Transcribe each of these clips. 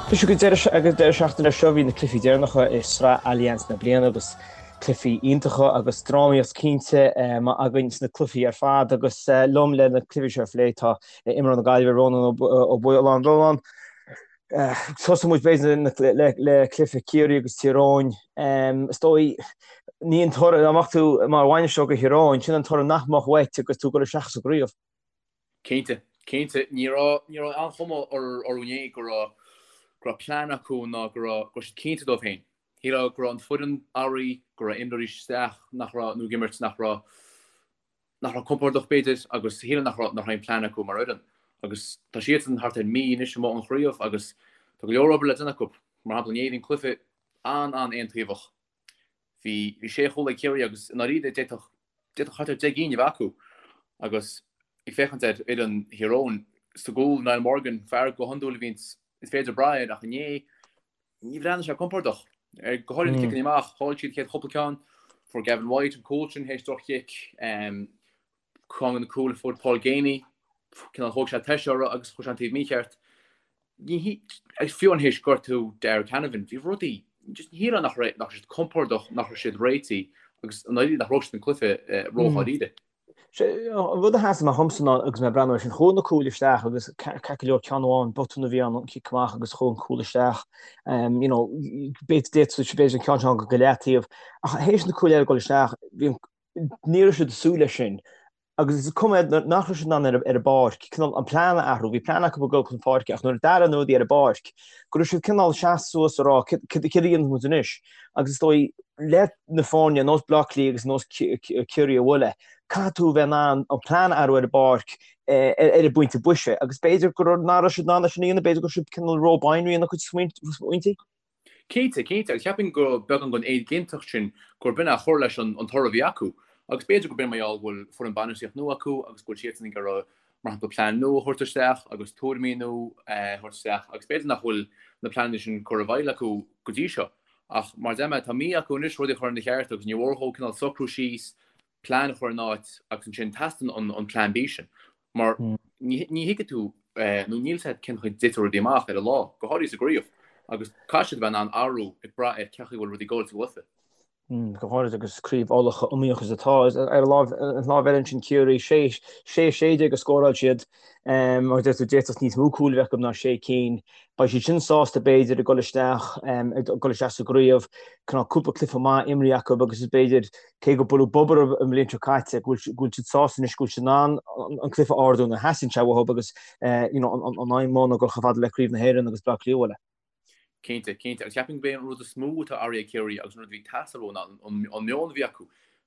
Anois ag an deireadh seachtaine seo bhí na cluichí deireanacha i Sraith Allianz na bliana agus cluichí iontacha agus drámaíocht cinnte againn sna cluichí ar fad agus liom le na cluichí seo a phlé tá imreoir na Gaillimhe Rónán Ó Bualláin. Rónán, tosóidh muid b'fhéidir le cluiche Ciarraí agus Tír Eoghain. Is dóigh ní an toradh dá mbeadh tú mar bhainisteoir do Thír Eoghain, sin an toradh nach mbeadh uait agus tú ag dul isteach sa gcraobh. Cinnte, cinnte. Ní raibh, ní raibh aon chuma orthu inné go raibh, go raibh plean acu ná go raibh, go raibh siad cinnte dóibh féin. Shílfeá go raibh an foireann athraithe, go raibh imreoirí isteach nach raibh, nó ag imirt nach raibh, nach raibh compordach b'fhéidir agus shílfeá nach raibh, nach raibh aon plean acu mar fhoireann. Agus tá siadsan thart ar mí anois amuigh ón chraobh agus tá go leor obair le déanamh acu. Mar shampla inné bhí an cluiche an-an-aontaobhach. Bhí sé chúl ag Ciarraí agus i ndáiríre d'fhéadfadh d'fhéadfadh thart ar 10 gcinn a bheith acu agus ag féachaint ar fhoireann Thír Eoghain sa gcúl, Niall Morgan, fear go hiondúil a bhíonns is féidir brath air ach inné ní bhreathnaigh sé compordach. Ar go háirithe na ciceanna amach, chaill siad an chéad chúpla ceann, fuair Gavin White an cúl sin théis droch-chic. Ceann de na cúil a fuair Paul Geaney, cineál thóg sé toise orthu agus chuaigh sé an taobh mícheart. Agus fiú amháin théis gortú Darragh Canavan, bhí rudaí, just ní shílfeá nach raibh, nach raibh siad compordach, nach raibh siad réitithe agus i ndáiríre nach raibh siad an cluiche ródháiríre. An rud a sheas amach dhomsa ná agus mé ag breathnú air sin, chuaigh na cúil isteach agus ceart go leor ceann amháin, botún a bhí ann, an cic amach agus chuaigh an cúl isteach. You know, b'fhéidir an ceann seo go leataobh. Ach théis na cúil eile dul isteach, bhí an Ní raibh siad ag súil leis sin agus is cuma nach raibh siad in ann ar an bpáirc cineál an plean a athrú. Bhí plean acu ag dul chun páirce ach nuair a d'athraigh na rudaí ar an bpáirc go raibh siad cineál seasamh suas a rá cad a dhéanfaidh muid anois agus is dóigh le na foirne ar nós Bleá Cliath agus ar nós Ciarraí a bhualadh caithfidh tú a bheith in ann an plean a athrú ar an bpáirc ar an bpointe boise agus b'fhéidir go raibh nach raibh siad in ann é sin a dhéanamh, b'fhéidir go raibh siad cineál ró-binary ina gcuid smaointe. Cinnte, cinnte, agus cheapfainn go beagán den éiginnteacht sin gur b'in a chuir leis an toradh a bhí acu. Agus b'fhéidir gurb in mar gheall go bhfuil foireann bainistíocht nua acu agus go bhfuil siadsan ag iarraidh, mar shampla, plean nua a thabhairt isteach agus tuairimí nua a thabhairt isteach agus b'fhéidir nach bhfuil na pleananna sin curtha i bhfeighil acu go dtí seo. Ach mar a deir mé, tá mí acu anois rudaí a chur ina cheart agus ní mhór dhóibh cineál socrú síos, plean a chur in áit agus ansin teastaíonn an plean B sin mar ní thuigfidh tú nó níl a fhios agat cén chaoi a dtitfidh rudaí amach ar an lá, go háirithe sa gcraobh, agus caithfidh siad a bheith in ann athrú ag brath ar cén chaoi a bhfuil rudaí ag dul sa gcluiche. Go háirithe agus craobh Uladh chomh iomaíoch is atá. Ar an lámh eile ansin Ciarraí, 6, 16 a scóráil siad mar a deir tú d'fhéadfadh níos mó cúil a bheith acu ná sé cinn. Beidh siad sin sásta b'fhéidir ag dul isteach ag dul isteach sa gcraobh, cineál cúpla cluiche maith imrithe acu agus is b'fhéidir, cé gur buaileadh bob orthu an bhliain seo caite, go bhfuil siad sásta anois go bhfuil siad in ann an cluiche a ardú nuair a theastaíonn sé uathu agus you know an aidhm mór ná dul chomh fada le Craobh na hÉireann agus Bleá Cliath a bhualadh. Cinnte, cinnte. Agus cheapfainn gurb é an rud is mó atá athraithe ag Ciarraí agus an rud a bhí ag teastáil uathu ná an meon a bhí acu.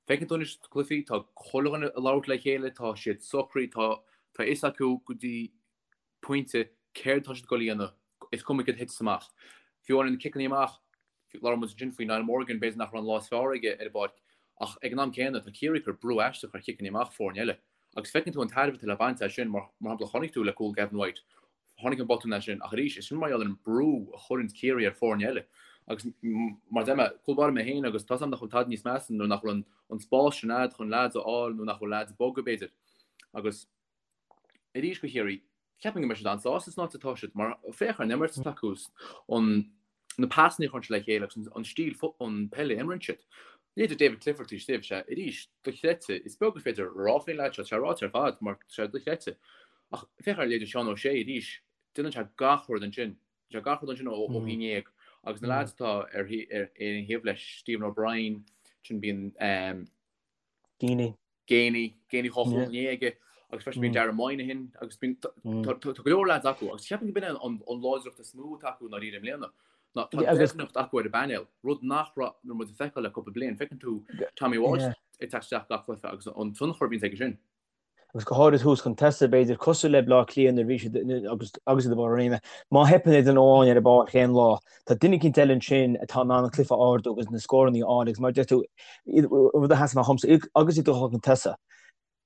Feiceann tú anois sna cluichí, tá chuile dhuine ag labhairt le chéile, tá siad socraithe, tá a fhios acu go dtí pointe céard atá siad ag dul a dhéanamh, is cuma céard a thiteas amach. Fiú amháin na ciceanna amach, labhair muid ansin faoi Niall Morgan, b'fhéidir nach raibh an lá is fearr aige ar an bpáirc, ach ag an am céanna tá Ciarraí ag cur brú aisteach ar chiceanna amach foirne eile. Agus feiceann tú an tairbhe atá le baint as sin, mar shampla chonaic tú le cúl Gavin White, tháinig an botún as sin, ach arís, is sin mar gheall ar an brú a chuireann Ciarraí ar foirne eile. Agus mar a deir mé, cúl báire mé féin agus tá 's agam nach bhfuil tada níos measa nuair nach bhfuil an spás sin a'd chun leaids a fháil nó nach bhfuil leaids ag bogadh b'fhéidir. Agus. Arís do Chiarraí, ceapaim go mbeidh siad an-sásta san áit atá siad mar féach ar an imirt atá acu, an na pasanna a chuireann siad le chéile agus an stíl an peile a imríonn siad. Leithéidí David Clifford taobh istigh, sé arís dochreidte, is beag gur féidir a rá faoin leaid seo, tá sé ráite ar fad mar tá sé dochreidte. Ach féach ar leithéidí Seán O'Shea arís, déanann sé gach rud ansin, déanann sé gach rud ansin ó thí ndéag agus na leaids atá ar ar an thaobh leis, Stephen O'Brien, sin bíonn Geaney. Geaney, Geaney 2 chúl inné aige agus freisin bíonn Darren Moynihan agus bíonn tá go leor lads acu agus ceapaim gurb in an láidreacht is mó atá acu i ndáiríre i mbliana ná tá doimhneacht acu ar an bpainéal, rud nach raibh nuair muid ag feiceáil le cúpla bliain. Feiceann tú Tommy Walsh ag teacht isteach gach cluiche agus an tionchar a bhíonns aige sin. Agus go háirid thuas chun tosaigh, b'fhéidir, cosúil le Bleá Cliath nuair a bhí siad agus agus iad i mbarr a réime. Má theipeann ar dhuine amháin ar an bpáirc aon lá, tá duine eicínt eile ansin atá in ann an cluiche a ardú agus na scóranna a fháil agus mar a deir tú, rud a sheas amach dhomsa, agus iad ag dul chun tosaigh,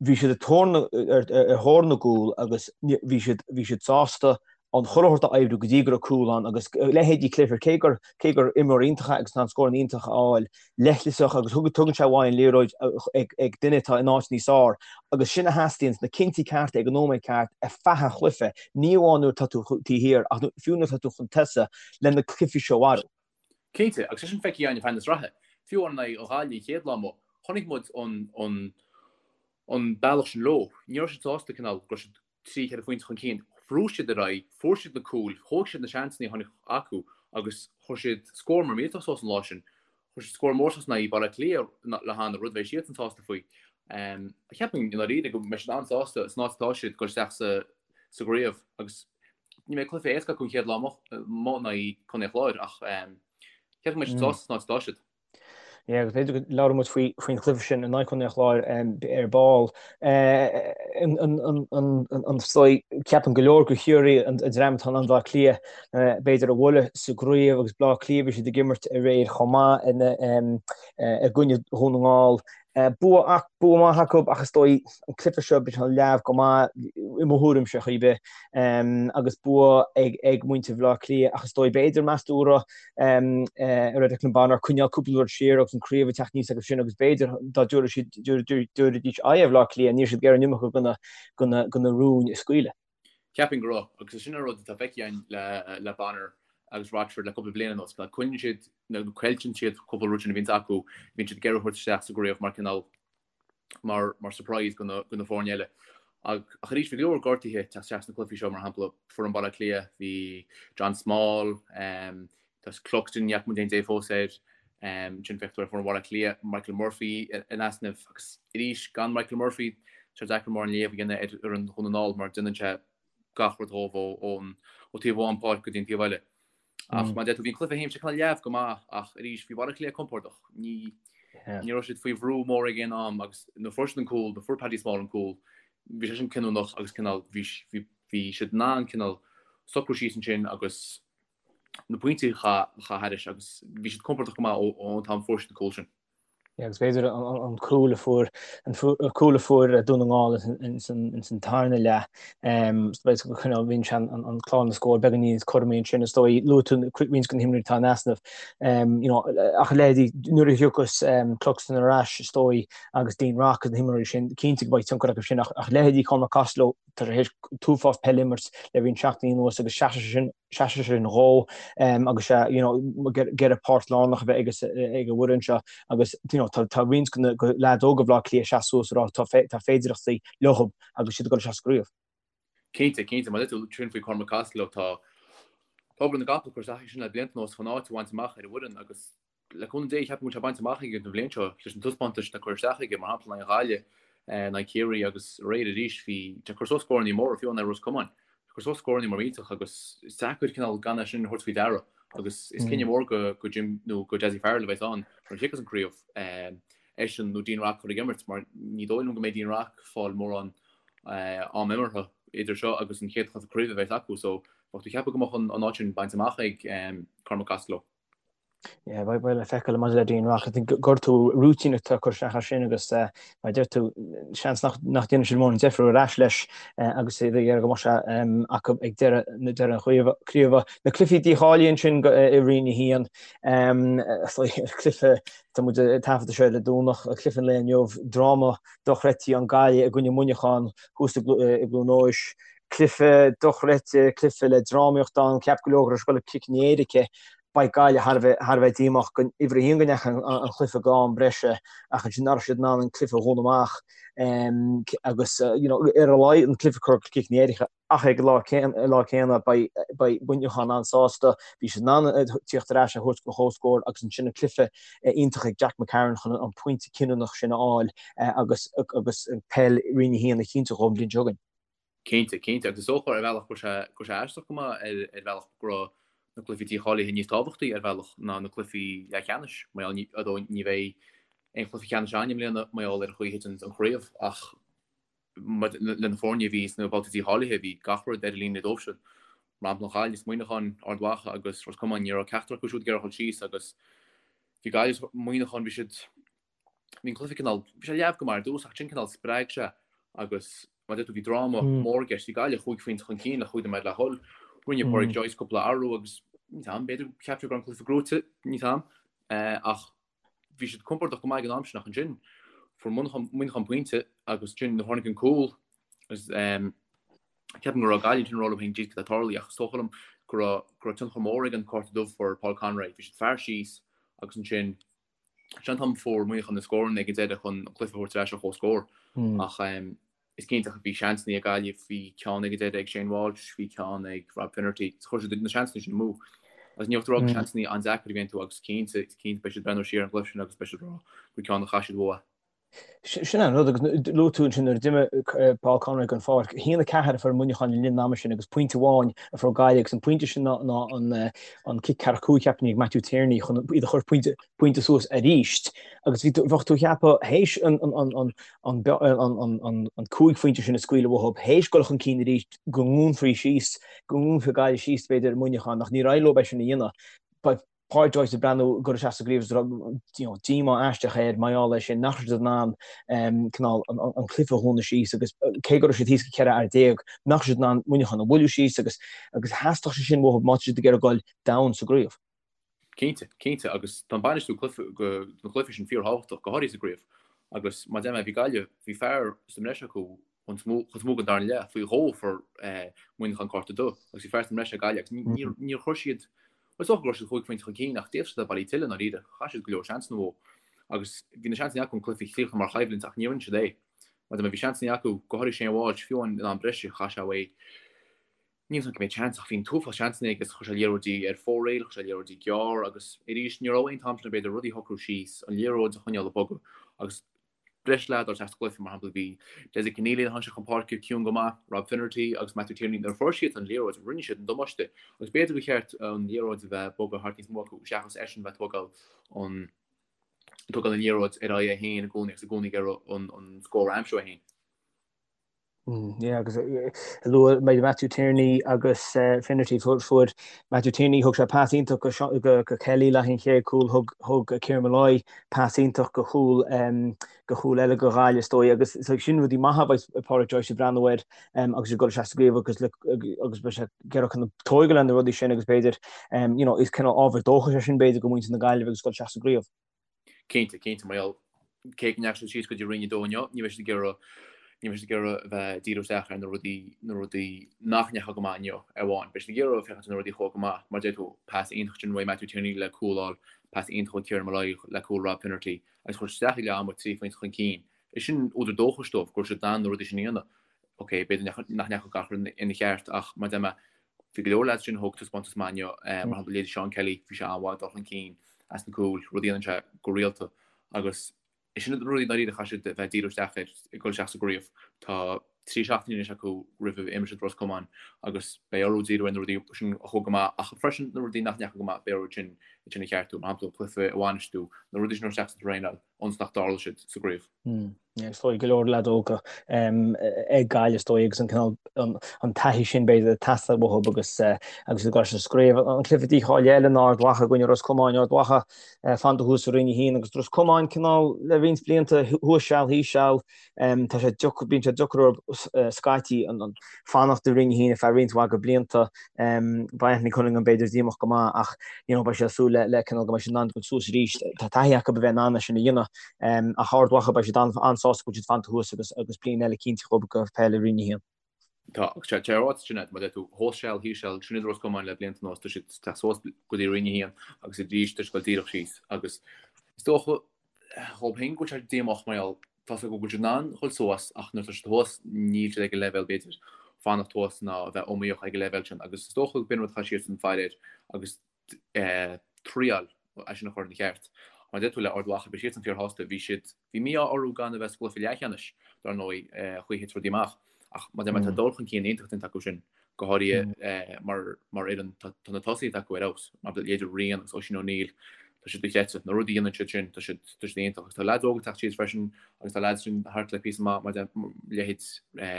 bhí siad ag tóir na, ar thóir na gcúl agus bhí siad, bhí siad sásta. An chuile shórt a oibriú go dtí go raibh cúl ann agus leithéidí Clifford, cé gur cé gur imreoir iontach é agus tá an scóranna iontach a fháil, leithleasach agus tugann sé uaidh an liathróid ag duine atá in áit níos fearr agus sin a theastaíonn, na cinntí cearta ag an nóiméad ceart ar feadh an chluiche, ní amháin nuair atá tú taobh thiar ach fiú nuair atá tú chun tosaigh le na cluichí seo a mharú. Cinnte, agus é sin feicthe againn ar feadh na sraithe. Fiú amháin in aghaidh Ghaillimh an chéad lá amuigh, chonaic muid an bealach sin leo. Ní raibh siad sásta cineál go raibh siad 3, 4 phointe chun cinn. Bhrúigh siad ar aghaidh, fuair siad na cúil, thóg siad na seansanna a tháinig acu agus chuir siad scór mór millteach suas an lá sin. Chuir siad scór mór suas in aghaidh Baile Átha Cliath le hannamh, rud a bheidh siadsan sásta faoi. Cheapfainn i ndáiríre go mbeidh siad an-sásta san áit atá siad dul isteach sa gcraobh agus ní bheidh cluiche éasca acu an chéad lá amuigh in aghaidh Contae an Chláir ach cheapfainn go mbeidh siad sásta san áit atá siad. Yeah, agus b'fhéidir go labhróidh muid faoi faoin chluiche sin in aghaidh Chontae an Chláir ar ball. An dóigh, ceapann go leor gur Chiarraí an dream atá in ann Bleá Cliath b'fhéidir a bhualadh sa gcraobh agus Bleá Cliath bhí siad ag imirt aréir chomh maith i gcoinne Dhún na nGall. Bua ach bua maith acu ach is dóigh an cluiche seo bhí sé leamh go maith i mo thuairimse chor ar bith agus bua ag ag muintir Bhaile Átha Cliath ach is dóigh b'fhéidir meas tú an raibh a raibh Declan Bonner coinneáil cúpla rud siar agus an craobh ag teacht aníos acu sin agus b'fhéidir dá dtabharfadh siad dtabharfaidís aghaidh ar Bhaile Átha Cliath ní raibh siad ag iarraidh an iomarca de na rúin a scaoileadh. Cheapfainn go raibh, agus sin an rud atá feicthe againn le Bonner agus Rochford le cúpla bliain anuas, go coinníonn siad nó coillteann siad cúpla rud sin a bhíonns acu, bíonn siad ag iarraidh a thabhairt isteach sa gcraobh mar cineál mar mar surprise do na do na foirne eile. Ach ach arís bhí go leor gortuithe ag teacht isteach sna cluichí seo, mar shampla foireann Bhaile Átha Cliath, bhí John Small, Tá Cluxton, ní fhaca muid aon dé fós air. Ansin féach tú ar foireann Bhaile Átha Cliath, Michael Murphy in easnamh agus arís gan Michael Murphy tá sé deacair mórán léamh a dhéanamh ar fhoireann Dhún na nGall mar déanann sé gach rud dhóibh ón ó taobh amháin páirc go dtí an taobh eile. Ach mar a deir tú bhí an cluiche féin sé cineál leamh go maith ach arís bhí Baile Átha Cliath compordach. Ní ní raibh siad faoi bhrú mór ag aon am agus nuair a fuair siad an cúl, nuair a fuair Paddy Small an cúl, bhí sé sin cinniúnach agus cineál bhí bhí bhí siad in ann cineál socrú síos ansin agus na pointí a chaitheamh thairis agus bhí siad compordach go maith ón t-am a fuair siad an cúl sin. Yeah, agus b'fhéidir an cúl a fuair an cúl a fuair Dún na nGall ins an tarna leath bhíonn sé an clár na scór beagán níos cothromaí ansin is dóigh luaigh tú roinnt de na himreoirí atá in easnamh ach leithéidí nuair a thiocfas Cluxton ar ais is dóigh agus Dean Rock agus na himreoirí sin cinnte go mbeidh tionchar acu sin ach leithéidí Cormac Costello tá sé théis an t-uafás peile a imirt le roinnt seachtainí anuas agus seasfaidh sé sin seasfaidh sé sin dhó agus sé you know ag iarraidh páirt lárnach a bheith ag an bhfoireann seo agus you know tá tá roinnt de na leaids óga Bhaile Átha Cliath ag seasamh suas ag rá tá tá féidireachtaí leo agus siad ag dul isteach sa gcraobh. Cinnte, cinnte, mar a deir tú sin faoi Cormac Costello tá tá obair na gcapall curtha isteach aige sin le blianta anuas chun áit a bhaint amach ar an bhfoireann agus Le cúnamh Dé, ceapaim go bhfuil sé bainte amach aige an bhliain seo leis na taispeántais atá curtha isteach aige, mar shampla in aghaidh Ghaillimh, in aghaidh Chiarraí agus aréir arís, bhí sé ag cur suas scóranna móra, fiú in aghaidh Ros Comáin. Ag cur suas scóranna mór millteach agus is deacair cineál gan é sin a thabhairt faoi deara agus is cinneadh mór go go Jim nó go Dessie Farrell a bheas ann nuair a thiocfas an craobh, eisean nó Dean Rock a chur ag imirt mar ní dóigh liom go mbeidh Dean Rock ag fáil mórán am imeartha idir seo agus an chéad chluiche craoibhe a bheas acu so bheadh tú ag ceapadh go mbeadh an áit sin bainte amach ag Cormac Costello. Yeah, beidh beidh le feiceáil maidir le Dean Rock. I think gortú routine atá curtha isteach air sin agus eh, mar a deir tú seans nach nach ndéanfaidh siad mórán deifir ar ais leis eh, agus iad ag iarraidh go mbeadh sé em, acu ag deireadh na deireadh an chraoibhe. craoibhe. Na cluichí dícháilithe ansin go, eh, i Roinn 1 em, eh, cluiche tá muid ag taifeadadh seo ar an Domhnach, cluiche an lae inniu, dráma dochreidte an Gaillimh i gcoinne Muineachán thuas i gClu- eh, i gCluain Eois. Cluiche dochreidte, cluiche le drámaíocht ann, cheap go leor go raibh sé ag dul go ciceanna éirice. Beidh Gaillimh thar a bheith thar a bheith díomách go uimhir a haon go ndeachaigh an cluiche go am breise ach ansin nach raibh siad in ann an cluiche a dhúnadh amach agus you know ar a laghad an cluiche a chur go ciceanna éirice ach ag an lá lá céanna beidh beidh Muineachán an-sásta bhí siad in ann tíocht ar ais a thabhairt go comhscór agus ansin an cluiche iontach ag Jack McCarron chun an pointe cinniúnach sin a fháil agus agus an peil Roinn 1 a chinntiú dhóibh an bhliain seo chugainn. Cinnte, cinnte. Agus is dócha ar bhealach go raibh sé, go raibh sé aisteach go maith ar, ar bhealach go raibh na cluichí dícháilithe níos tábhachtaí ar bhealach ná na cluichí leathcheannais. Mar gheall, ní, although ní bheidh aon chluiche ceannais ann i mbliana mar gheall ar an chaoi a thiteann an chraobh ach mar, le na foirne a bhí sna babhtaí dícháilithe bhí gach rud ar an líne dóibhsean. Mar shampla an Ghaillimh is Muineachán, Ard Mhacha agus Ros Comáin, ní raibh ceachtar acu siúd ag iarraidh a dhul síos agus bhí Gaillimh is Muineachán, bhí siad, Bhí an cluiche cineál, bhí sé leamh go maith ar dtús ach ansin cineál spreag sé agus mar a deir tú bhí dráma mór i gceist. Bhí Gaillimh chúig phointe chun cinn le chúig nóiméad le dhul. Rinne Pádraic Joyce cúpla athrú agus níl a fhios agam, b'fhéidir cheap sé go raibh an cluiche gnóite, níl a fhios agam, ach bhí siad compordach go maith ag an am sin ach ansin fuair Muineachán pointe agus ansin nuair a tháinig an cúl agus ceapaim go raibh Gaillimh ansin ag rá leo féin jeez cad atá ag tarlú ach is dócha liom go raibh go raibh tionchar mór ag an cárta dubh a fuair Paul Conroy. Bhí siad fear síos agus ansin sin an t-am a fuair Muineachán na scóranna ag an deireadh chun an cluiche a thabhairt ar ais ar comhscór ach Is cinnte bhí seansanna ag Gaillimh, bhí ceann ag an deireadh ag Shane Walsh, bhí ceann ag Rob Finnerty. Chuir siad na seansanna sin amú. Agus ní bheadh tú ag rá gur seansanna an-deacair a bhí iontu agus cinnte, cinnte beidh siad ag breathnú siar ar an gcluiche sin agus beidh siad ag rá gur ceann a chaith siad uathu. Sin an rud agus luaigh tú ansin nuair a d'imigh Paul Conroy den pháirc, 1-4 a fuair Muineachán le linn an ama sin agus pointe amháin a fuair Gaillimh agus an pointe sin ná an cic ceathracha 5 cheapfainn ag Matthew Tierney chun iad a chur pointe pointe suas arís agus bhí bheadh tú ag ceapadh théis an an 5 phointe sin a scaoileadh uathu, théis dul chun cinn arís go ndúnfaí síos, go ndúnfaí Gaillimh síos b'fhéidir Muineachán ach níor éirigh leo é sin a dhéanamh. Beidh Pádraic Joyce ag breathnú ag dul isteach sa gcraobh agus díomá aisteach air mar gheall air sin nach raibh siad in ann cineál an cluiche a dhúnadh síos agus cé go raibh siad thíos go 14 fhear nach raibh siad in ann Muineachán a bhualadh síos agus agus theastódh sé sin uathu má tá siad ag iarraidh dul domhain sa gcraobh. Cinnte, cinnte, agus tá an bainistiú cluiche, na cluichí sin fíorthábhachtach, go háirithe sa gcraobh. Agus mar a deir mé, bhí Gaillimh, bhí fear sa mbreis acu chun is mó den darna leath, faoi dhó a fuair Muineachán cárta dubh, agus bhí fear sa mbreis ag Gaillimh agus níor, níor chuir siad, bhuel is dócha go raibh siad chúig phointe chun cinn ach d'fhéadfadh siad a bheith bailithe tuilleadh i ndáiríre, chaith siad go leor seansanna uathu. Agus bhí na seansanna acu an cluiche a chríochnú mar choimhlint ach níor rinne siad é. Mar a deir mé, bhí seansanna acu, go háirithe Shane Walsh, fiú amháin in am breise, chaith sé uaidh. Níl 's agam cé mhéad seans ach bhí an t-uafás seansanna aige agus chuir sé liathróidí ar fóraoil, chuir sé liathróidí gearr agus arís ní raibh aon t-am sin b'fhéidir rudaí a shocrú síos, an liathróid a choinneáil ag bogadh agus breis leaid dul isteach sa gcluiche, mar shampla bhí Dessie Conneely nuair a tháinig sé chun páirce ciúin go maith, Rob Finnerty agus Matthew Tierney nuair a fuair siad an liathróid rinne siad an damáiste agus b'fhéidir gur cheart an liathróid a bheith ag bogadh thart níos mó acu seachas eisean bheith tógáil an tógáil an liathróid ar aghaidh é féin i gcónaí agus i gcónaí ag iarraidh an an scór a aimsiú é féin. Yeah, agus luaigh mé Matthew Tierney agus Finnerty fuair Matthew Tierney thug sé pas iontach go go go Kelly le haghaidh an chéad cúl thug thug Kieran Molloy pas iontach go chúl go chúl eile go Ghaillimh is dóigh agus so sin rudaí maithe a bheidh Pádraic Joyce ag breathnú air agus ag dul isteach sa gcraobh agus agus beidh sé ag iarraidh chun tógáil ar na rudaí sin agus b'fhéidir you know is cineál ábhar dóchais é sin b'fhéidir go muintir na Gaillimhe agus dul isteach sa gcraobh. Cinnte, cinnte, mar gheall, cé go ndeachaigh siad síos go dtí Roinn 2 inniu, ní bheidh siad ag iarraidh, ní bheidh siad ag iarraidh a bheith ag díriú isteach ar na rudaí, na rudaí nach ndeachaigh go maith inniu ar amháin. Beidh siad ag iarraidh féachaint ar na rudaí a chuaigh go maith, mar a deir tú, pas iontach sin uaidh Matthew Tierney le cúl a fháil, pas iontach ó Kieran Molloy le cúl Rob Finnerty, agus chuir siad isteach ag leath ama 3 phointe chun cinn. Is sin údar dóchais dóibh go raibh siad in ann na rudaí sin a dhéanamh. Ok, b'fhéidir nach ndeachaigh gach rud ina cheart ach mar a deir mé, Bhí go leor leaids sin a thug taispeántas maith inniu, mar shampla leithéidí Seán Kelly, bhí sé an-mhaith ag dul chun cinn as na cúil, rud a dhéanann sé go rialta agus is sin na rudaí dáiríre a chaithfidh siad a bheith ag díriú isteach air ag dul isteach sa gcraobh. Tá 3 seachtaine anois acu roimh a imreoidh siad Ros Comáin agus beidh orthu díriú ar na rudaí sin a chuaigh go maith ach freisin na rudaí nach ndeachaigh go maith beidh orthu sin sin a cheartú, mar shampla an cluiche a bhainistiú, na rudaí sin a thabhairt isteach sa traenáil ionas nach dtarlóidh siad sa gcraobh. Is dóigh go leor leaid óga ag Gaillimh is dóigh agus an cineál an taithí sin b'fhéidir ag teastáil uathu agus agus ag dul sa gcraobh. An cluiche dícháilithe eile ná Ard Mhacha i gcoinne Ros Comáin, Ard Mhacha fanta thuas i Roinn 1 agus Ros Comáin cineál le roinnt blianta thuas seal thíos seal. Tá sé deacair, bíonn sé deacair orthu scaití an fanacht i Roinn 1 ar feadh roinnt mhaith de blianta. Beidh Anthony Cunningham b'fhéidir díomách go maith ach you know beidh sé ag súil le cineál go mbeidh siad in ann dul suas arís. Tá taithí acu a bheith in ann é sin a dhéanamh. Ach Ard Mhacha beidh siad an-sásta go bhfuil siad fanta thuas agus agus bliain eile cinnte acu go peil i Roinn 1. Tá, agus tá sé ráite sin agat, mar a deir tú, thuas seal, thíos seal, sin iad Ros Comáin le blianta anuas, tá siad ag teacht suas go dtí Roinn 1 agus arís tá siad ag dul díreach síos agus is dócha dhóibh féin go bhfuil sé díomách mar gheall tá 's acu go bhfuil siad in ann dhul suas ach nuair atá siad thuas níl siad ag an leibhéal b'fhéidir fanacht thuas ná a bheith iomaíoch ag an leibhéal sin agus is dócha go b'in rud a chaithfidh siadsan faire air agus triail é sin a chur ina cheart. Mar a deir tú le Ard Mhacha, beidh siadsan fíorshásta, bhí siad, bhí mí-ádh orthu gan a bheith sa gcluiche leathcheannais, dar ndóigh, chaoi a thit rudaí amach. Ach mar a deir mé, tá dul chun cinn iontach déanta acu sin, go háirithe mar mar fhoireann, tá na tosaithe acu ar fheabhas, mar leithéidí Rian agus Oisín O'Neill, tá siad dochreidte. Na rudaí a dhéanann siad sin, tá siad tá siad iontach. Agus tá leaids óga ag teacht síos freisin agus tá leaids sin thart le píosa maith, mar leithéid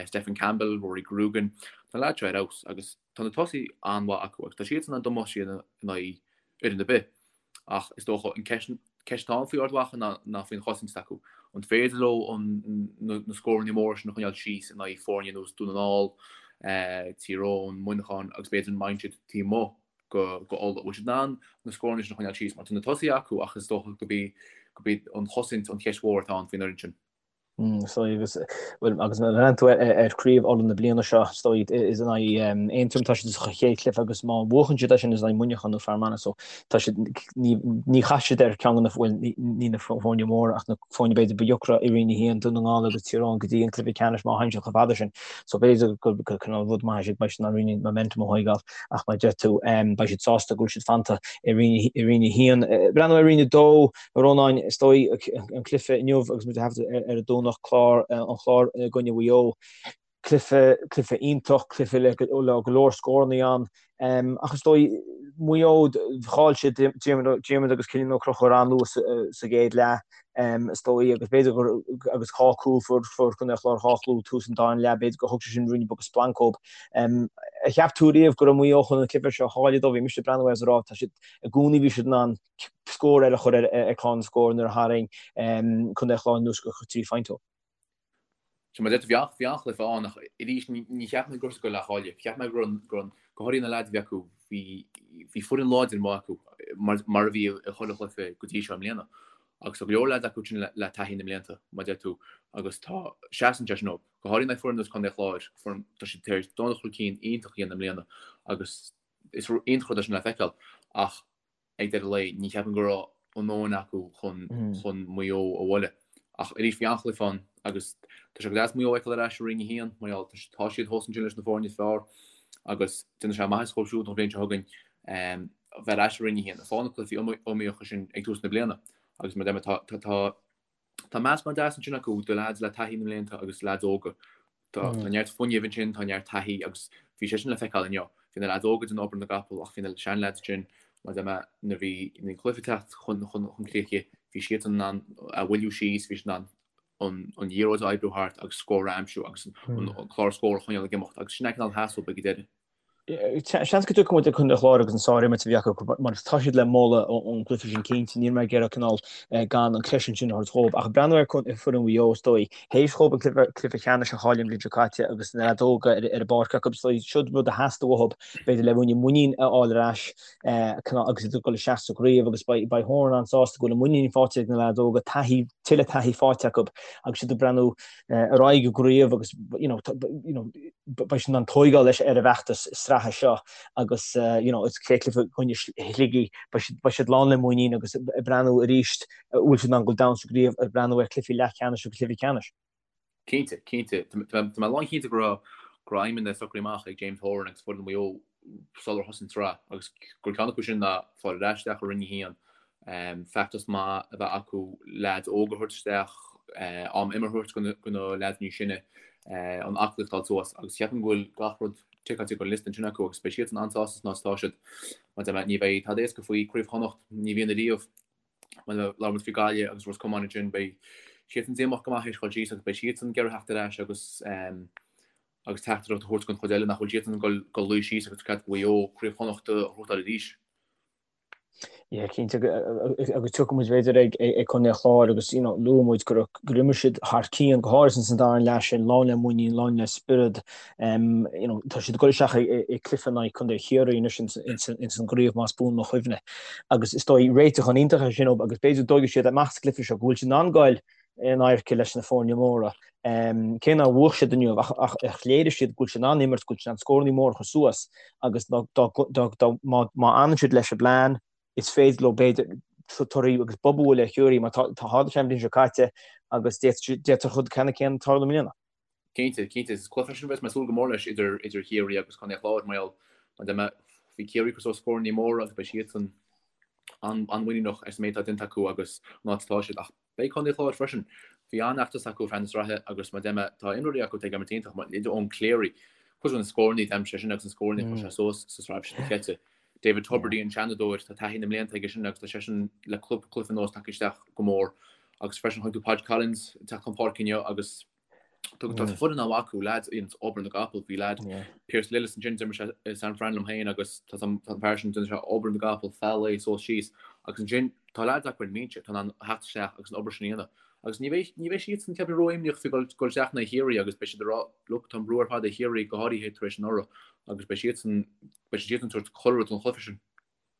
Stephen Campbell, Rory Grugan, tá na leaids seo ar fheabhas agus Tá na tosaithe an-mhaith acu agus tá siadsan in ann damáiste a dhéanamh in aghaidh fhoireann ar bith. Ach is dócha an ceist atá ann faoi Ard Mhacha ná faoin chosaint s'acu. An féidir leo na scóranna móra sin a choinneáil síos in aghaidh foirne ar nós Dún na nGall? Tír Eoghain, Muineachán agus b'fhéidir an mindset taobh amuigh go Ulaidh. Bhfuil siad in ann na scóranna sin a choinneáil síos mar tá na tosaithe acu ach is dócha go b'í go b'í an chosaint an cheist mhór atá ann faoin fhoireann sin. Is dóigh agus bhuel agus má bhreathnaíonn tú ar chraobh Uladh na bliana seo is dóigh is in aghaidh Aontroim tá siad sa chéad chluiche agus má bhuachann siad é sin is in aghaidh Muineachán nó Fear Manach so tá siad ní ní chaithfidh siad ar ceann de na bhuel ní na foirne móra ach na foirne b'fhéidir ba dheacra i Roinn 1, Dún na nGall agus Tír Eoghain go dtí an cluiche ceannais má théann siad chomh fada sin. So b'fhéidir gur gur cineál rud maith é sin beidh siad in ann roinnt momentum a thógáil ach mar a deir tú beidh siad sásta go bhfuil siad fanta i Roinn i Roinn 1. Breathnú ar Roinn 2 A Rónáin, is dóigh, an cluiche inniu agus muid ag taifeadadh ar an Domhnach, clár, an Chlár i gcoinne Mhaigh Eo. Cluiche, cluiche iontach, cluiche le go leor scórannaí ann. Ach is dóigh, Maigh Eo, chaill siad Diarmuid agus Cillian Ó Conchúir an-luath sa gcéad leath, is dóigh, agus b'fhéidir gur, agus dhá chúl, fuair, fuair Contae an Chláir dhá chúl tús an dara leath, b'fhéidir gur thug sé sin ruainne beag splanc dóibh. Ar cheap tú riamh go raibh Maigh Eo chun an cluiche seo a chailleadh dóibh? Bhí mise ag breathnú air is ag rá, tá siad, i gcónaí bhí siad in ann scór eile a chur ar chlár na scór nuair a tharraing Contae an Chláir anuas go 3 phointe. Sea, mar a deir tú, bhí an-chluiche ann ach arís ní cheap mé go raibh siad ag goil á chailleadh. Cheap mé go raibh, go háirithe na leaids a bhí acu, bhí foireann láidir maith acu mar a bhí i chuile chluiche go dtí seo i mbliana. Agus tá go leor leaids acu sin le taithí na mblianta, mar a deir tú, agus tá, seasann sé sin dóibh. Go háirithe in aghaidh foireann ar nós Contae an Chláir, foireann, tá siad tar éis dul chun cinn iontach a dhéanamh i mbliana agus is iontach rud é sin le feiceáil ach ag deireadh lae, ní cheapaim go raibh a ndóthain acu chun chun Maigh Eo a bhualadh. Ach arís bhí an-chluiche ann agus tá sé go deas Maigh Eo a fheiceáil ar ais i Roinn 1 mar gheall tá siad thuas ansin leis na foirne is fearr agus déanfaidh sé maitheas dhóibh siúd an bhliain seo chugainn bheith ar ais i Roinn 1 ag fáil na cluichí iomaíocha sin ag tús na bliana agus mar a deir mé tá tá Tá meascán deas ansin acu de leaids le taithí na mblianta agus leaids óga. Tá neart fuinnimh ansin, tá neart taithí agus bhí sé sin le feiceáil inniu. Bhí na leaids óga ag déanamh obair na gcapall ach bhí na seanleaids ansin, mar a deir mé, nuair a bhí an cluiche ag teacht chun críche, bhí siadsan in ann a mhoilliú síos, bhí siad in ann an liathróid a oibriú thart agus scór a aimsiú agus an clár scór a choinneáil ag imeacht agus sin é an cineál a theastaigh ag an deireadh. Seans go dtiocfaidh muid ar Chontae an Chláir agus an sár-imirt a bhí acu mar tá siad le moladh ón gcluiche sin cinnte. Níl mé ag iarraidh cineál gan an creidiúint sin a thabhairt dhóibh. Ach breathnú ar foireann Mhaigh Eo is dóigh, théis dhóibh an cluiche ceannais a chailleadh an bhliain seo caite agus na leaids óga ar an bpáirc acu, is dóigh siod rud a theastaigh uathu b'fhéidir le ruainne muinín a fháil ar ais agus iad ag dul isteach sa gcraobh agus beidh Horan an-sásta go bhfuil an muinín faighte ag na leaids óga, taithí, tuilleadh taithí faighte acu agus iad ag breathnú ar aghaidh i gcraobh agus you know you know beidh siad in ann tóigeáil leis ar an bhfeachtas sraithe seo agus you know is chéad chluiche i gcoinne Shligigh beidh siad beidh siad lán le muinín agus ag breathnú arís bhfuil siad in ann dul domhain sa gcraobh ag breathnú ar chluichí leathcheannais agus cluichí ceannais. Cinnte, cinnte. Tá mé lánchinnte go raibh go raibh aidhmeanna socraithe amach ag James Horan agus foireann Mhaigh Eo sular thosaigh an tsraith agus gur ceann acu sin ná fáil ar ais isteach i Roinn 1, feachtas maith a bheith acu, leaids óga a thabhairt isteach, am imeartha a thabhairt do na leaids níos sine, an aclaíocht a fháil suas agus ceapaim go bhfuil gach rud ticeáilte den liosta ansin acu agus beidh siadsan an-sásta san áit atá siad. Mar a deir mé, ní bheidh tada éasca faoi Chraobh Chonnacht, ní bhíonn ariamh. Mar labhair muid faoi Gaillimh agus Ros Comáin ansin, beidh siadsan díomách go maith théis dhul síos agus beidh siadsan ag iarraidh theacht ar ais agus agus teachtaireacht a thabhairt don chuid eile nach bhfuil siadsan ag dul luí síos agus cead Mhaigh Eo Craobh Chonnacht a ghnóthachtáil arís. Yeah, cinnte agus tiocfaidh muid b'fhéidir ag ag Contae an Chláir agus you know luaigh muid gur gur imir siad thar cionn go háirithe san dara leath sin lán le muinín, lán le spiorad um, you know, tá siad ag dul isteach i gcluiche in aghaidh Contae Chiarraí anois ins an gcraobh más buan mo chuimhne. Agus is dóigh réiteach an iontach é sin agus b'fhéidir go dtógfaidh siad amach sa gcluiche seo go bhfuil siad in ann goil in adharca leis na foirne móra. Cé nár bhuaigh siad inniu ach ach léirigh siad go bhfuil siad in ann imirt, go bhfuil siad in ann scóranna móra a chur suas agus má fhanann siad leis an bplean, is féidir leo b'fhéidir torthaí agus bob a bhualadh ar Chiarraí mar tá tharla sé an bhliain seo caite agus d'fhéadfadh an rud ceannann céanna tarlú i mbliana. Cinnte, cinnte. Is cluiche é sin a bheas mé ag súil go mór leis idir idir Chiarraí agus Contae an Chláir mar gheall mar a deir mé bhí Ciarraí ag cur suas scóranna móra agus beidh siadsan an-mhuiníneach as an méid atá déanta acu agus an áit atá siad ach beidh Contae an Chláir freisin. Bhí an-fheachtas acu feadh na sraithe agus mar a deir mé tá imreoirí acu atá ag imirt iontach mar idir Eoin Cleary, cuid de na scóranna a d'aimsigh seisean agus na scóranna a chuir sé suas sa sraith seo caite. David Tubridy an Seanadóir, tá taithí na mblianta aige sin agus tá seisean le cúpla cluiche anuas tagtha isteach go mór agus freisin chonaic tú Podge Collins ag teacht chun páirce inniu agus tá foireann an-mhaith acu, leaids a dhéananns obair na gcapall, bhí leaid Pearse Lillis ansin, d'imir sé i San Fran liom féin agus tá an fear sin déanann sé obair na gcapall feadh lae suas síos agus ansin tá leaids acu ar an mbinse atá in ann theacht isteach agus an obair sin a dhéanamh. Agus ní bheidh, ní bheidh siadsan, ceapaim, ró-imníoch faoi dhul, dhul isteach in aghaidh Chiarraí agus beidh siad ag rá, look, tá an brú ar fad ar Chiarraí, go háirithe tar éis anuraidh, agus beidh siadsan, beidh siadsan ag tabhairt chuile rud don chluiche sin.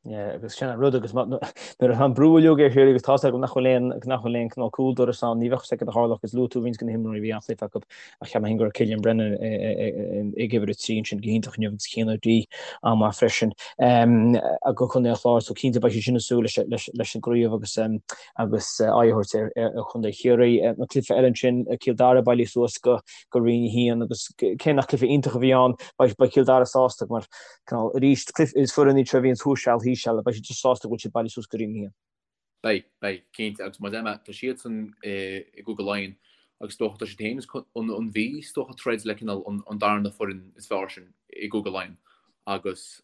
Yeah, agus sin an rud agus nuair atá an brú uilig ar Chiarraí agus tá's agam nach bhfuil aon nach bhfuil aon cineál cúl doras ann, ní bheadh fhios agat a tharlódh agus luaigh tú roinnt de na himreoirí a bhí an-chluiche acu ach cheap mé féin go raibh Cillian Brennan ag uimhir 3 ansin go hiontach inniu agus Cian O'Dea an-mhaith freisin do Chontae an Chláir so cinnte beidh siad sin ag súil leis an gcraobh agus agus aghaidh a thabhairt ar Chontae Chiarraí. An cluiche eile ansin, Cill Dara bailithe suas go Roinn 1 agus cé nach cluiche iontach a bhí ann beidh Cill Dara sásta mar Cineál, arís, cluiche, is foireann iad seo a bhíonn thuas seal, thíos seal, beidh siad just sásta go bhfuil siad bailithe suas go Roinn 1. Beidh, beidh, cinnte, agus mar a deir mé, tá siadsan i gCúige Laighean agus is dócha, tá siad féin is an Mhí, is dócha, ag troid le cineál an darna foireann is fearr sin i gCúige Laighean agus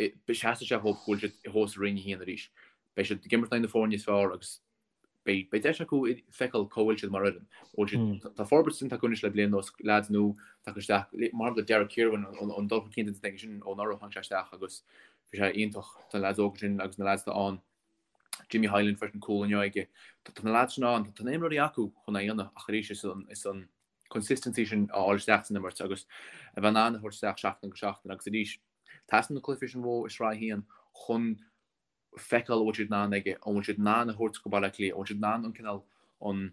seasfaidh sé dhóibh go bhfuil siad thuas i Roinn 1 arís. Beidh siad ag imirt in aghaidh na foirne is fearr agus Beidh deis acu feiceáil cá bhfuil siad mar fhoireann. Bhfuil siad, tá forbairt déanta acu anois le bliain anuas, leaids nua tagtha isteach, mar shampla Derek Kirwan, an dul chun cinn déanta aige sin ó anuraidh, tháinig sé isteach agus bhí sé iontach. Tá na leaids óga sin agus na leaids atá ann, Jimmy Hyland freisin, cúl inniu aige. Tá na leaids sin ann, tá na imreoirí acu chun é a dhéanamh ach arís is an, is an consistency sin a fháil isteach san imirt agus a bheith in ann a thabhairt isteach seachtain go seachtain agus arís teastaíonn na cluichí sin uathu i Sraith 1 chun feiceáil an bhfuil siad in ann aige, an bhfuil siad in ann a thabhairt go Baile Átha Cliath, an bhfuil siad in ann an cineál, an,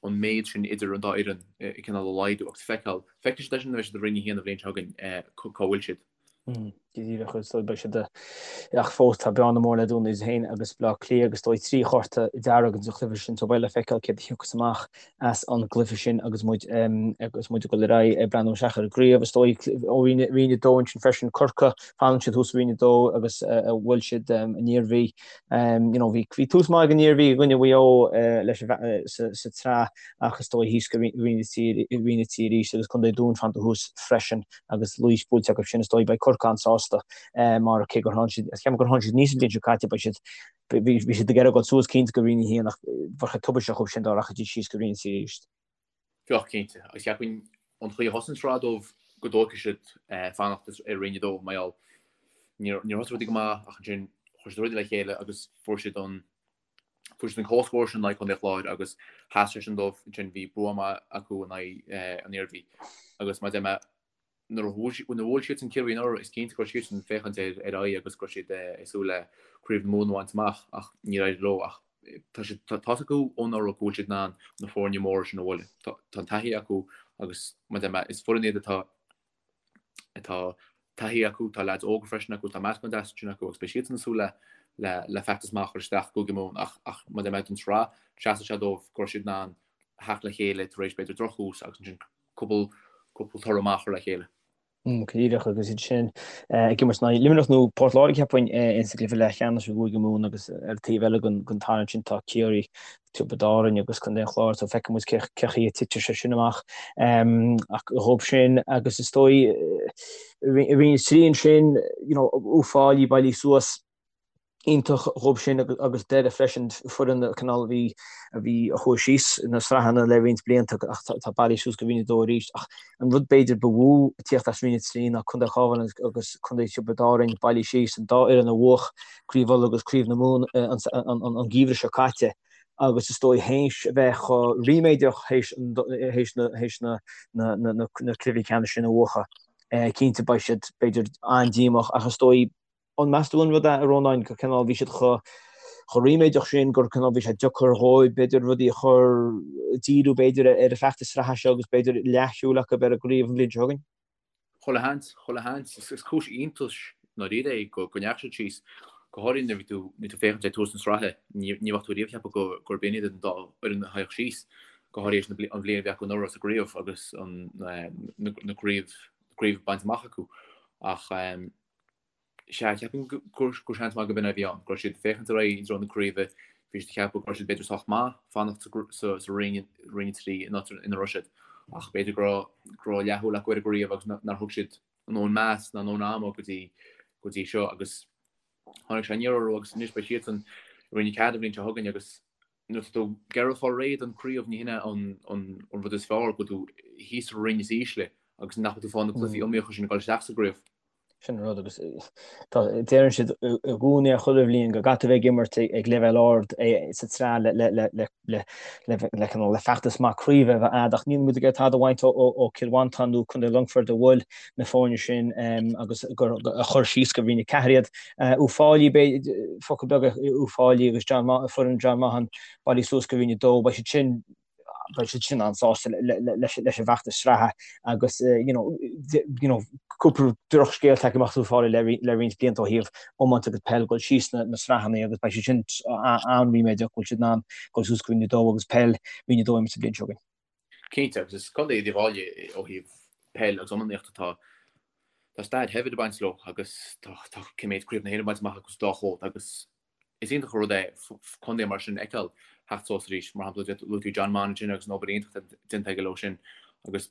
an méid sin idir an dá fhoireann cineál a laghdú agus feiceáil, feicfidh siad é sin nuair a bheidh siad i Roinn 1 an bhliain seo chugainn, cá bhfuil siad. Go díreach, is dóigh beidh siad ach fós tá bearna mór le dúnadh idir féin agus Baile Átha Cliath agus is dóigh 3 chárta dearg sa chluiche sin so beidh le feiceáil céard a thiocfas amach as an gcluiche sin agus muid agus muid ag dul ar aghaidh ag breathnú isteach ar an gcraobh. Is dóigh ó Roinn 2 ansin freisin, Corcaigh, fanann siad thuas i Roinn 2 agus bhuail siad an Iarmhí. You know, bhí bhí tús maith ag an Iarmhí i gcoinne Mhaigh Eo leis sa sa tsraith ach is dóigh thíos go Roinn 3 Roinn 3 arís agus Contae Dúin fanta thuas freisin agus Laois buailte acu sin is dóigh beidh Corcaigh an-sásta mar cé gur tháinig siad, ceapaim gur tháinig siad aníos an bhliain seo caite beidh siad Bhí siad ag iarraidh dul suas cinnte go Roinn 1 ach bheadh sé tubaisteach dhóibh sin dá rachaidís síos go Roinn 3 arís. Bheadh, cinnte. Agus cheapfainn an chaoi a thosaigh an tsraith dóibh go dtógfaidh siad fanacht i Roinn 2 mar gheall níor thosaigh rudaí go maith ach ansin chuir siad rudaí le chéile agus fuair siad an fuair siad an comhscór sin in aghaidh Chontae an Chláir agus sheas sé sin dóibh ansin bhí bua maith acu in aghaidh an Iarmhí agus mar a deir mé Nuair a bhuail siadsan Ciarraí anuraidh, is cinnte go raibh siadsan ag féachaint ar aghaidh agus go raibh siad ag súil le Craobh na Mumhan a bhaint amach ach níor éirigh leo. Ach tá siad, tá fhios acu ó anuraidh go bhfuil siad in ann na foirne móra sin a bhualadh. Tá an taithí acu agus mar a deir mé, is foireann iad atá, atá taithí acu, tá leaids óga freisin acu, tá meascán deas ansin acu agus beidh siadsan ag súil le, le, le feachtas maith a chur isteach i gCúige Mumhan ach, ach mar a deir mé don tsraith, seasfaidh sé dóibh go raibh siad in ann theacht le chéile tar éis b'fhéidir drochthús agus ansin cúpla toradh maith a chur le chéile. Go díreach agus iad sin ag imirt in aghaidh Luimneach nó Port Láirge cheapfainn insa gcluiche leathcheannais i gCúige Mumhan agus ar an taobh eile den tarraingt sin tá Ciarraí, Tiobraid Árann agus Contae an Chláir so feicfidh muid cé chaoi a titfidh sé sin amach ach dhóibh sin agus is dóigh i Roinn 3 ansin you know Uíbh Fhailí bailithe suas iontach dhóibh sin agus Doire freisin, foireann cineál a bhí a bhí a chuaigh síos na sraitheanna le roinnt blianta ach tá bailithe suas go Roinn 2 arís. Ach an rud b'fhéidir ba mhó ag tíocht as Roinn 3 ná Contae an Chabháin agus Contae Thiobraid Árann bailithe síos, an dá fhoireann a bhuach Craobh Uladh agus Craobh na Mumhan an geimhreadh seo caite agus is dóigh théis a bheith chomh ríméadach théis théis na na na cluichí ceannais sin a bhuachan. Cinnte beidh siad b'fhéidir an-díomách ach is dóigh An meas tú an rud é, a Rónáin, gur cineál bhí siad chomh chomh ríméadach sin gur cineál bhí sé deacair dhóibh b'fhéidir rudaí a chur, díriú b'fhéidir ar an bhfeachtas sraithe seo agus b'fhéidir leathshúil acu ar an gcraobh an bhliain seo chugainn? Chuile sheans, chuile sheans. Is cúis iontais i ndáiríre é go ndeachaigh siad síos, go háirithe nuair a bhí tú nuair tú féachaint ag tús na sraithe, ní ní bheadh tú riamh ag ceapadh go gurb in iad an dá fhoireann a théadh síos, go háirithe théis an bhliain a bhí acu anuraidh sa gcraobh agus an na craobh craobh bainte amach acu. Ach Sea, cheapfainn gur seans maith go b'in é a bhí ann, go raibh siad ag féachaint ar aghaidh i dtreo na craoibhe, bhí siad ag ceapadh go raibh siad b'fhéidir sách maith fanacht sa Roinn, Roinn 3 an áit ina raibh siad, ach b'fhéidir go raibh, go raibh leathshúil acu ar an gcraobh agus nár thug siad a ndóthain meas ná a ndóthain ama go dtí, go dtí seo agus tháinig sé aniar orthu agus anois beidh siadsan i Roinn 4 an bhliain seo chugainn agus nuair atá tú ag iarraidh fáil réidh don chraobh ní hin é an rud is fearr go bhfuil tú thíos sa roinn is ísle agus nach bhfuil tú ag fáil na cluichí iomaíocha sin ag dul isteach sa gcraobh. Sin an rud agus deireann siad i gcónaí ar chuile bhliain go gcaithfidh tú a bheith ag imirt ag leibhéal ard sa tsraith le feachtas maith craoibhe a bheith a'd ach níl muid ag iarraidh tada a bhaint ó Cill Mhantáin nó Contae Longfoirt a bhuail na foirne sin agus a chuir síos go Roinn 4 iad. Uíbh Fhailí, focal beag ar Uíbh Fhailí agus foireann John Maughan bailithe suas go Roinn 2, beidh siad sin beidh siad sin an-sásta leis an bhfeachtas sraithe agus you know, you know, cúpla drochscéal tagtha amach as Uíbh Fhailí le roinnt blianta ó thaobh iomáint agus peil dul síos na sraitheanna agus beidh siad sin an-ríméadach go bhfuil siad in ann dul suas go Roinn 2 agus peil Roinn 2 a imirt sa bhliain seo chugainn. Cinnte, agus is contae iad Uíbh Fhailí ó thaobh peil agus iománaíocht atá tá stair shaibhir ag baint leo agus tá tá cé mhéad craobh na hÉireann bainte amach acu sa dá chód agus Is iontach an rud é contae mar sin a fheiceáil theacht suas arís. Mar shampla, luaigh tú John Maughan ansin agus an obair iontach atá déanta aige leo sin. Agus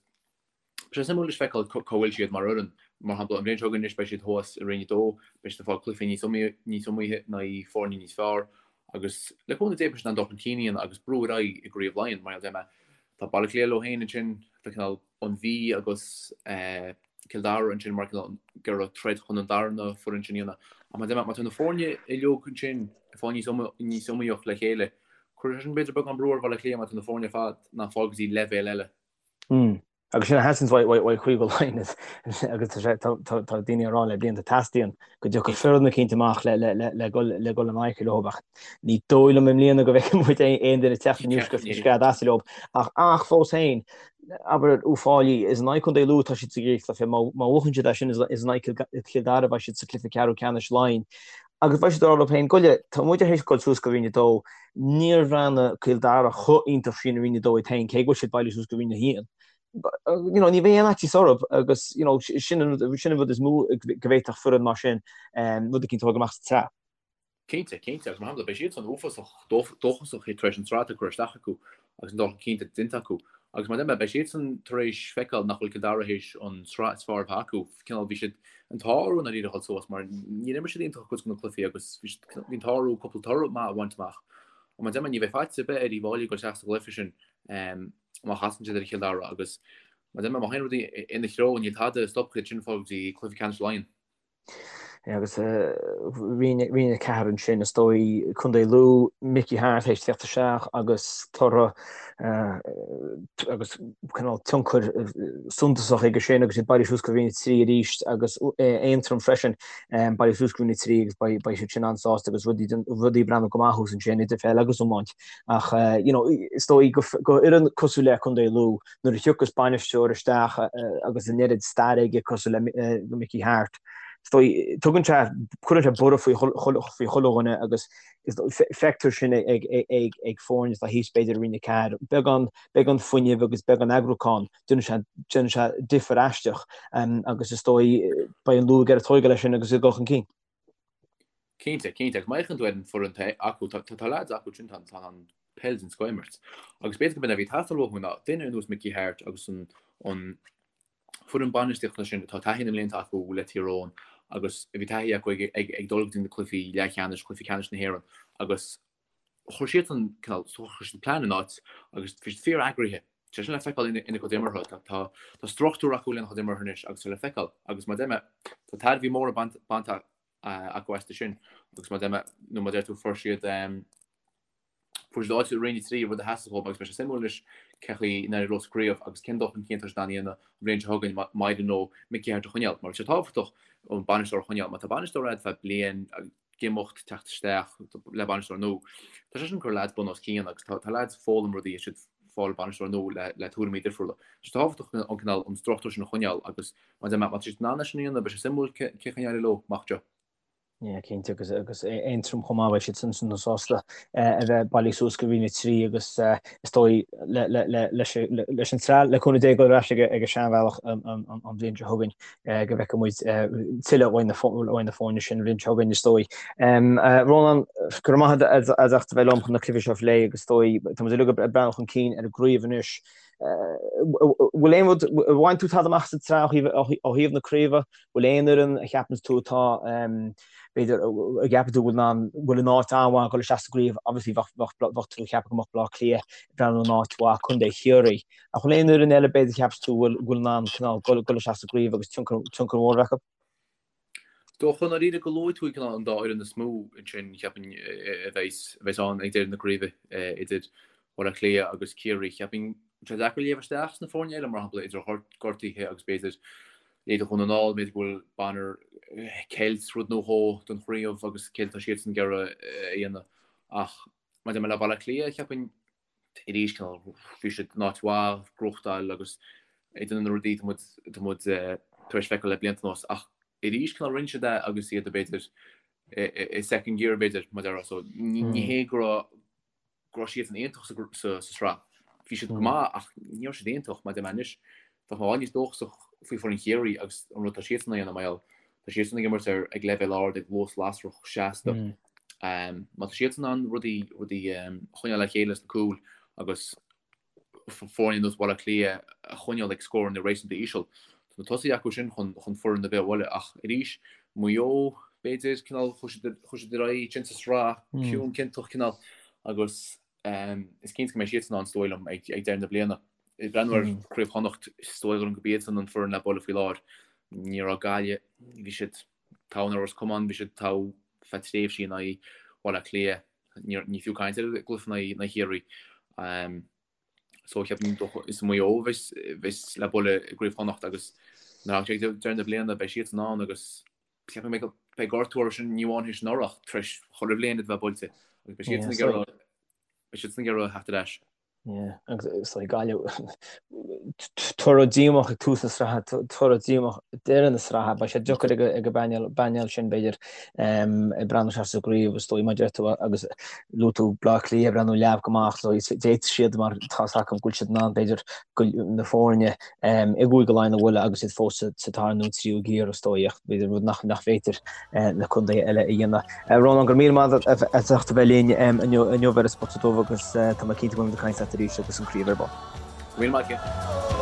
tá sé suimiúil anois feiceáil cá bhfuil siad mar fhoireann. Mar shampla, an bhliain seo chugainn anois beidh siad thuas i Roinn 2, beidh siad ag fáil cluichí níos iomaíche in aghaidh foirne níos fearr. Agus le cúnamh Dé beidh siad in ann dul chun cinn a dhéanamh agus brú ar aghaidh i gCraobh Laighean. Mar a deir mé, tá Baile Átha Cliath leo féin ansin, tá cineál an Mhí agus Cill Dara ansin mar cineál ag iarraidh troid chun an darna foireann sin a dhéanamh. Ach mar a deir mé, má tá na foirne uilig ansin ag fáil níos níos iomaíoch le chéile, cuirfidh sé sin b'fhéidir beagán brú ar Bhaile Átha Cliath má tá na foirne ar fad in ann fáil go dtí leibhéal eile. Mm. Agus sin a theastaíonn uaidh uaidh Chúige Laighean agus tá sé tá tá daoine ag rá le blianta teastaíonn go dtiocfaidh foireann eicínt amach le le le le dul le dul in aghaidh leo ach ní dóigh liom i mbliana go bhfeicfidh muid aon duine teacht aníos go scread as leo ach ach fós féin abair Uíbh Fhailí, is in aghaidh Contae Lú atá siad sa gcéad chluiche, má bhuachann siad é sin is in aghaidh Chill Dara a bheidh siad sa chluiche ceathrú ceannais Laighean. Agus beidh siad ag rá leo féin, goile, tá muid tar éis dul suas go Roinn 2, níor bhreathnaigh Cill Dara chomh iontach sin i Roinn 2 iad féin, cé go bhfuil siad bailithe suas go Roinn 1. You know, ní bheidh aon fhaitíos orthu agus you know, sin an rud is mó go bhféadfadh foireann mar sin rud eicínt a thógáil amach sa tsraith. Cinnte, cinnte, agus mar shampla, beidh siadsan uafásach dóchasach tar éis an tsraith atá curtha isteach acu agus an dul chun cinn atá déanta acu. Agus mar a deir mé, beidh siadsan tar éis feiceáil nach bhfuil Cill Dara théis an tsraith is fearr a bheith acu. Cineál, bhí siad an t-ádh orthu i ndáiríre a dhul suas mar níor imir siad iontach cuid de na cluichí agus bhí siad, bhí an t-ádh orthu cúpla toradh maith a bhaint amach. Ach mar a deir mé, ní bheidh faitíos ar bith ar Uíbh Fhailí ag dul isteach sa gcluiche sin má chasann siad ar Chill Dara agus mar a deir mé, má théann rudaí ina threo, níl tada a stopfaidh iad sin fáil go dtí cluiche ceannais Laighean. Agus Roinn 4 ansin, is dóigh, Contae Lú, Mickey Harte théis teacht isteach agus toradh agus cineál tionchar suntasach aige sin agus iad bailithe suas go Roinn 3 arís agus Aontroim freisin bailithe suas go Roinn 3 agus beidh siad sin an-sásta agus rudaí rudaí ag breathnú go maith thuas ansin idir pheil agus iomáint. Ach you know is dóigh go fhoireann cosúil le Contae Lú nuair a thiocfas bainisteoir isteach agus an oiread staire aige cosúil le Mickey Harte, is dóigh, tugann sé, cuireann sé borradh faoi chuile dhuine agus feictear sin ag foirne atá thíos b'fhéidir i Roinn 4, beagán, beagán fuinnimh agus beagán eagrúcháin, déanann sé, déanann sé difear aisteach agus is dóigh, beidh an Lú ag iarraidh tógáil leis sin agus ag dul chun cinn. Cinnte, cinnte. Agus má fhéachann tú ar an foireann atá acu, tá, tá leaids acu sin, tá, tá an peil den scoth a imirt. Agus b'fhéidir go b'in a bhí ag teastáil uathu ná duine ar nós Mickey Harte agus an, an foireann bainistíochta sin atá taithí na mblianta acu le Tír Eoghain agus a bhí taithí acu ag, ag, ag dul go dtí na cluichí leathcheannais, cluichí ceannais na hÉireann agus chuir siad an cineál, chuir siad plean in áit agus bhí siad fíor-eagraithe. Tá sin le feiceáil ina gcuid imeartha. Tá, tá struchtúr acu lena chuid imeartha anois agus tá le feiceáil. Agus mar a deir mé, tá tairbhí móra bainte acu astu sin. Agus mar a deir mé, nó mar a deir tú, fuair siad, fuair siad áit i Roinn 3, rud a theastaigh uathu agus beidh sé suimiúil anois cén chaoi a n-éireoidh leo sa chraobh agus cén dul chun cinn atá siad in ann a dhéanamh an bhliain seo chugainn má éiríonn leo Mickey Harte a choinneáil. Mar tá sé tábhachtach an bainisteoir a choinneáil. Má tá bainisteoir agat feadh bliain, ag imeacht, teacht isteach le bainisteoir nua. Tá sé sin ag cur leaids bun os cionn agus tá leaids ag foghlaim rudaí is siad ag fáil bainisteoir nua le le tuairimí difriúla. Tá sé tábhachtach an cineál an struchtúr sin a choinneáil agus má má tá siad in ann é sin a dhéanamh beidh sé suimiúil cén chaoi a n-éireoidh leo amach anseo. Yeah, cinnte agus agus Aontroim chomh maith beidh siad sin sin sásta a bheith bailithe suas go Roinn 3 agus is dóigh le le le leis leis an tsraith le cúnamh Dé dul ar ais ag ag an seanbhealach an an an bhliain seo chugainn. go bhfeicfidh muid tuilleadh uaidh na foirne sin an bhliain seo chugainn, is dóigh. Rónán, go raibh maith agat as ucht a bheith liom chun na cluichí seo a phlé agus is dóigh, tá muid uilig ag breathnú chun cinn ar an gcraobh anois. Bhfuil aon rud, ar bhain tú tada amach sa tsraith ó thaobh na craoibhe? Bhfuil aon fhoireann a cheapann tú atá, b'fhéidir, a gceapann tú bhfuil in bhfuil in áit an-mhaith ag dul isteach sa gcraobh? Obviously bheadh tú ag ceapadh go mbeadh Baile Átha Cliath ag breathnú in áit mhaith, Contae Chiarraí. Ach bhfuil aon fhoireann eile b'fhéidir a cheapas tú bhfuil in ann cineál dul isteach sa gcraobh agus tionchar mór a bheith acu? Dócha i ndáiríre go luaigh tú cineál an dá fhoireann is mó ansin, cheapfainn, a bheas ann ag deireadh na craoibhe idir Baile Átha Cliath agus Ciarraí. Cheapfainn sé deacair léamh isteach sna foirne eile, mar shampla idir gortuithe agus b'fhéidir leithéidí Dhún na nGall, b'fhéidir go bhfuil Bonner ag ceilt rud nó dhó don chraobh agus céard atá siadsan ag iarraidh a dhéanamh. Ach maidir le Baile Átha Cliath, cheapfainn arís cineál bhí siad in áit mhaith, gnóthachtáil agus ag déanamh na rudaí atá muid tar éis feiceáil le blianta anuas. Ach arís cineál rinne siad é agus iad b'fhéidir i second gear b'fhéidir mar a déarfá. So ní hé go raibh go raibh siadsan iontach sa sraith. Bhí siad go maith ach ní raibh siad iontach mar a deir mé anois. Bheadh mé i bhfad níos dóchasach faoi foireann Chiarraí agus an rud atá siadsan a dhéanamh mar gheall tá siadsan ag imirt ar ag leibhéal ard ag luas lasrach seasta. Má tá siadsan in ann rudaí rudaí a choinneáil le chéile sna cúil agus foirne ar nós Bhaile Átha Cliath a choinneáil ag scóranna réasúnta íseal. Tá na tosaithe acu sin chun chun foireann ar bith a bhualadh ach arís Maigh Eo b'fhéidir cineál chuaigh siad chuaigh siad ar aghaidh ansin sa sraith ciúin ciontach cineál agus is cinnte go mbeidh siadsan ann is dóigh liom ag ag deireadh na bliana. Ag breathnú ar Chraobh Chonnacht is dóigh liom gurb iadsan an foireann le bualadh faoi láthair. Ní raibh Gaillimh, bhí siad togha in aghaidh Ros Comáin, bhí siad togha feadh tréimhsí in aghaidh Bhaile Átha Cliath. Ní fiú caint ar an gcluiche in aghaidh Chiarraí. So cheapfainn is Maigh Eo a bheas le bualadh i gCraobh Chonnacht agus nuair a thagann sé ag deireadh na bliana beidh siadsan ann agus cheapfainn go mbeidh gortú orthu sin ní amháin théis anuraidh ach tar éis chuile bhliain iad a bheith buailte agus beidh siadsan ag iarraidh beidh siadsan ag iarraidh theacht ar ais. Yeah, agus is dóigh Gaillimh, toradh díomách ag tús na sraithe, toradh díomách ag deireadh na sraithe, beidh sé deacair ag an bpainéal sin b'fhéidir ag breathnú isteach sa gcraobh is dóigh mar a deir tú agus luaigh tú Baile Átha Cliath ag breathnú leamh go maith so d'fhéadfadh siad mar tá 's acu go bhfuil siad in ann b'fhéidir na foirne i gCúige Laighean a bhualadh agus iad fós sa dara nó tríú giar is dóigh ach b'fhéidir rud nach féidir na contaetha eile a dhéanamh. Rónán, go raibh míle maith agat as ucht a bheith linn inniu ar An Spota Dubh agus tá mé cinnte go mbeimid ag caint leat arís agus an craobh ar bun. Go raibh míle maith agat.